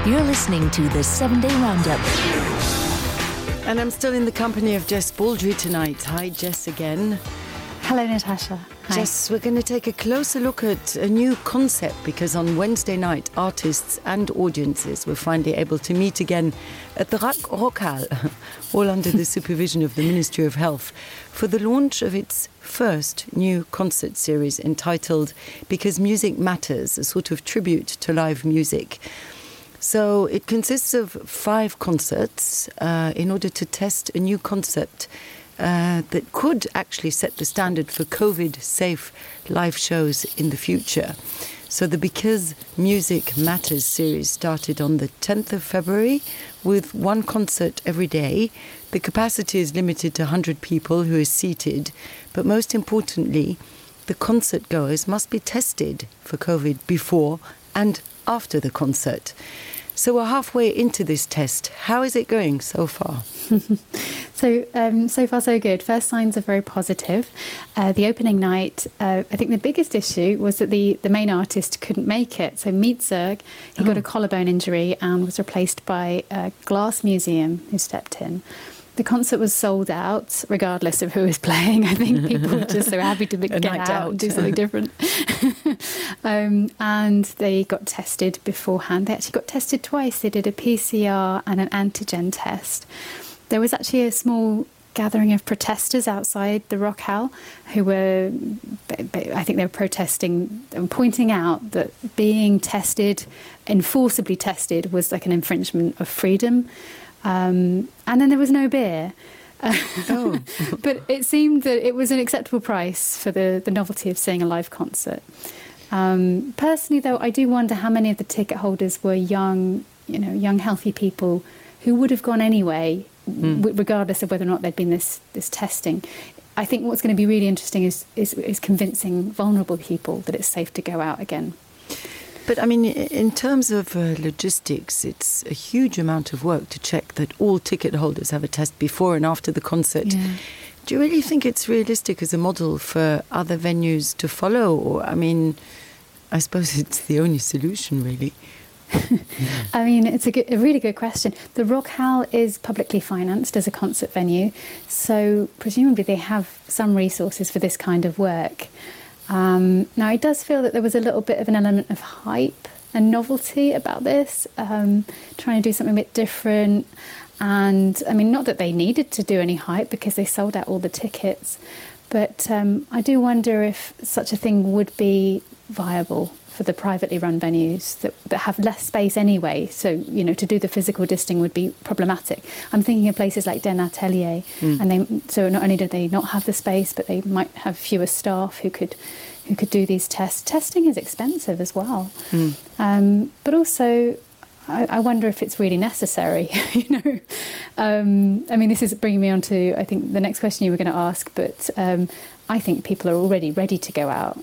You're listening to the 7-Day Roundup. And I'm still in the company of Jess Baldry tonight. Hi, Jess again. Hello, Natasha. Hi. Jess, we're going to take a closer look at a new concept because on Wednesday night, artists and audiences were finally able to meet again at the Rockhal, all under the supervision of the Ministry of Health, for the launch of its first new concert series entitled Because Music Matters, a sort of tribute to live music. So it consists of 5 concerts in order to test a new concept that could actually set the standard for COVID-safe live shows in the future. So the Because Music Matters series started on the 10th of February with 1 concert every day. The capacity is limited to 100 people who are seated, but most importantly, the concert goers must be tested for COVID before and after the concert. So we're halfway into this test. How is it going so far? So far so good. First signs are very positive. The opening night, I think the biggest issue was that the main artist couldn't make it. So Mietzerg, he got a collarbone injury and was replaced by a glass museum who stepped in. The concert was sold out, regardless of who was playing. I think people were just so happy to get out and do something different. And they got tested beforehand. They actually got tested twice. They did a PCR and an antigen test. There was actually a small gathering of protesters outside the Rockhal who were, I think they were protesting and pointing out that being tested, enforceably tested, was like an infringement of freedom. And then there was no beer. But it seemed that it was an acceptable price for the novelty of seeing a live concert. Personally, though, I do wonder how many of the ticket holders were young, healthy people who would have gone anyway, regardless of whether or not there'd been this testing. I think what's going to be really interesting is convincing vulnerable people that it's safe to go out again. But, I mean, in terms of logistics, it's a huge amount of work to check that all ticket holders have a test before and after the concert. Yeah. Do you really think it's realistic as a model for other venues to follow? Or, I mean, I suppose it's the only solution, really. I mean, it's a really good question. The Rockhal is publicly financed as a concert venue, so presumably they have some resources for this kind of work. Now, it does feel that there was a little bit of an element of hype and novelty about this, trying to do something a bit different. And, I mean, not that they needed to do any hype because they sold out all the tickets. But I do wonder if such a thing would be viable for the privately run venues that have less space anyway. So, to do the physical distancing would be problematic. I'm thinking of places like Den Atelier. So not only do they not have the space, but they might have fewer staff who could do these tests. Testing is expensive as well. But also, I wonder if it's really necessary, I mean, this is bringing me on to, I think, the next question you were going to ask, but I think people are already ready to go out.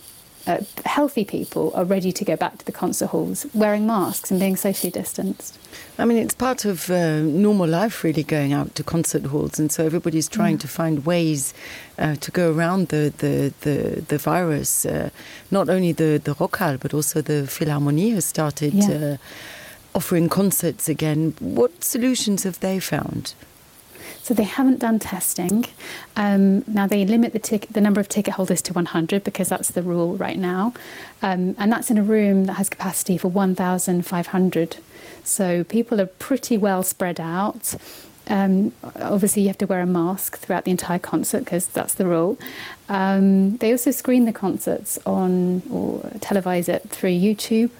Healthy people are ready to go back to the concert halls wearing masks and being socially distanced. I mean, it's part of normal life, really, going out to concert halls, and so everybody's trying to find ways to go around the virus. Not only the Rockhal, but also the Philharmonie has started offering concerts again. What solutions have they found? So they haven't done testing. Now they limit the number of ticket holders to 100 because that's the rule right now. And that's in a room that has capacity for 1,500. So people are pretty well spread out. Obviously, you have to wear a mask throughout the entire concert because that's the rule. They also screen the concerts on or televise it through YouTube.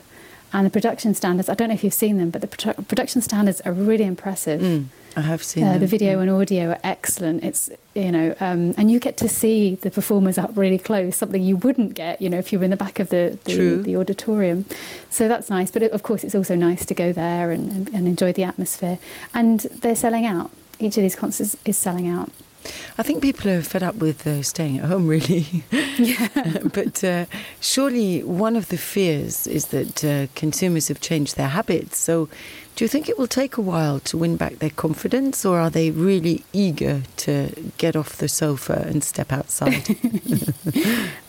And the production standards, I don't know if you've seen them, but the production standards are really impressive. I have seen them. The video and audio are excellent. It's, and you get to see the performers up really close, something you wouldn't get, if you were in the back of the auditorium. So that's nice. But of course, it's also nice to go there and enjoy the atmosphere. And they're selling out. Each of these concerts is selling out. I think people are fed up with staying at home, really. But surely one of the fears is that consumers have changed their habits. So Do you think it will take a while to win back their confidence, or are they really eager to get off the sofa and step outside?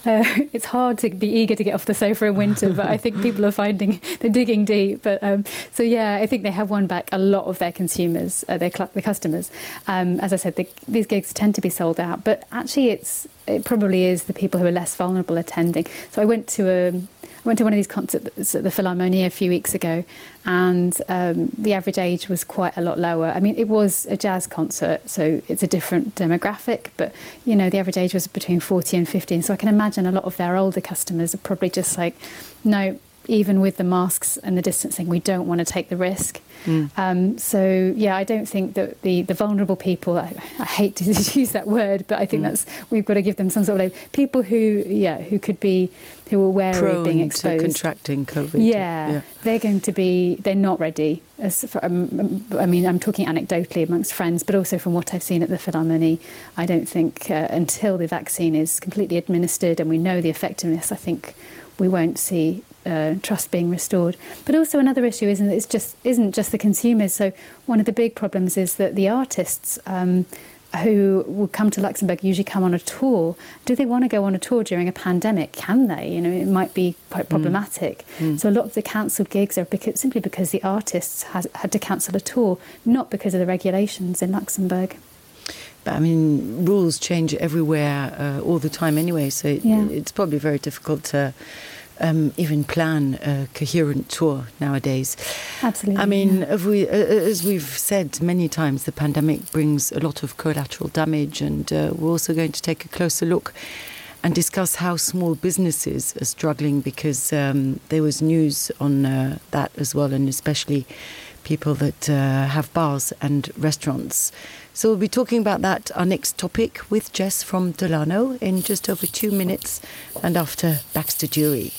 It's hard to be eager to get off the sofa in winter, but I think people are finding they're digging deep. But so yeah, I think they have won back a lot of their consumers, their customers. As I said, these gigs tend to be sold out, but actually it probably is the people who are less vulnerable attending. So I went to one of these concerts at the Philharmonie a few weeks ago, and the average age was quite a lot lower. I mean, it was a jazz concert, so it's a different demographic, but, you know, the average age was between 40 and 50. So I can imagine a lot of their older customers are probably just like, no, even with the masks and the distancing, we don't want to take the risk. So, yeah, I don't think that the vulnerable people, I hate to use that word, but I think we've got to give them some sort of people who are wary of being exposed. To contracting COVID. Yeah, they're not ready. I'm talking anecdotally amongst friends, but also from what I've seen at the Philharmonie, I don't think until the vaccine is completely administered and we know the effectiveness, I think we won't see trust being restored. But also another issue isn't just the consumers. So one of the big problems is that the artists who will come to Luxembourg usually come on a tour. Do they want to go on a tour during a pandemic? Can they? You know, it might be quite problematic. So a lot of the cancelled gigs are simply because the artists had to cancel a tour, not because of the regulations in Luxembourg. But I mean, rules change everywhere all the time anyway, so it's probably very difficult to even plan a coherent tour nowadays. Absolutely. I mean, as we've said many times, the pandemic brings a lot of collateral damage, and we're also going to take a closer look and discuss how small businesses are struggling, because there was news on that as well, and especially people that have bars and restaurants. So we'll be talking about that, our next topic, with Jess from Delano in just over 2 minutes, and after Baxter Jury.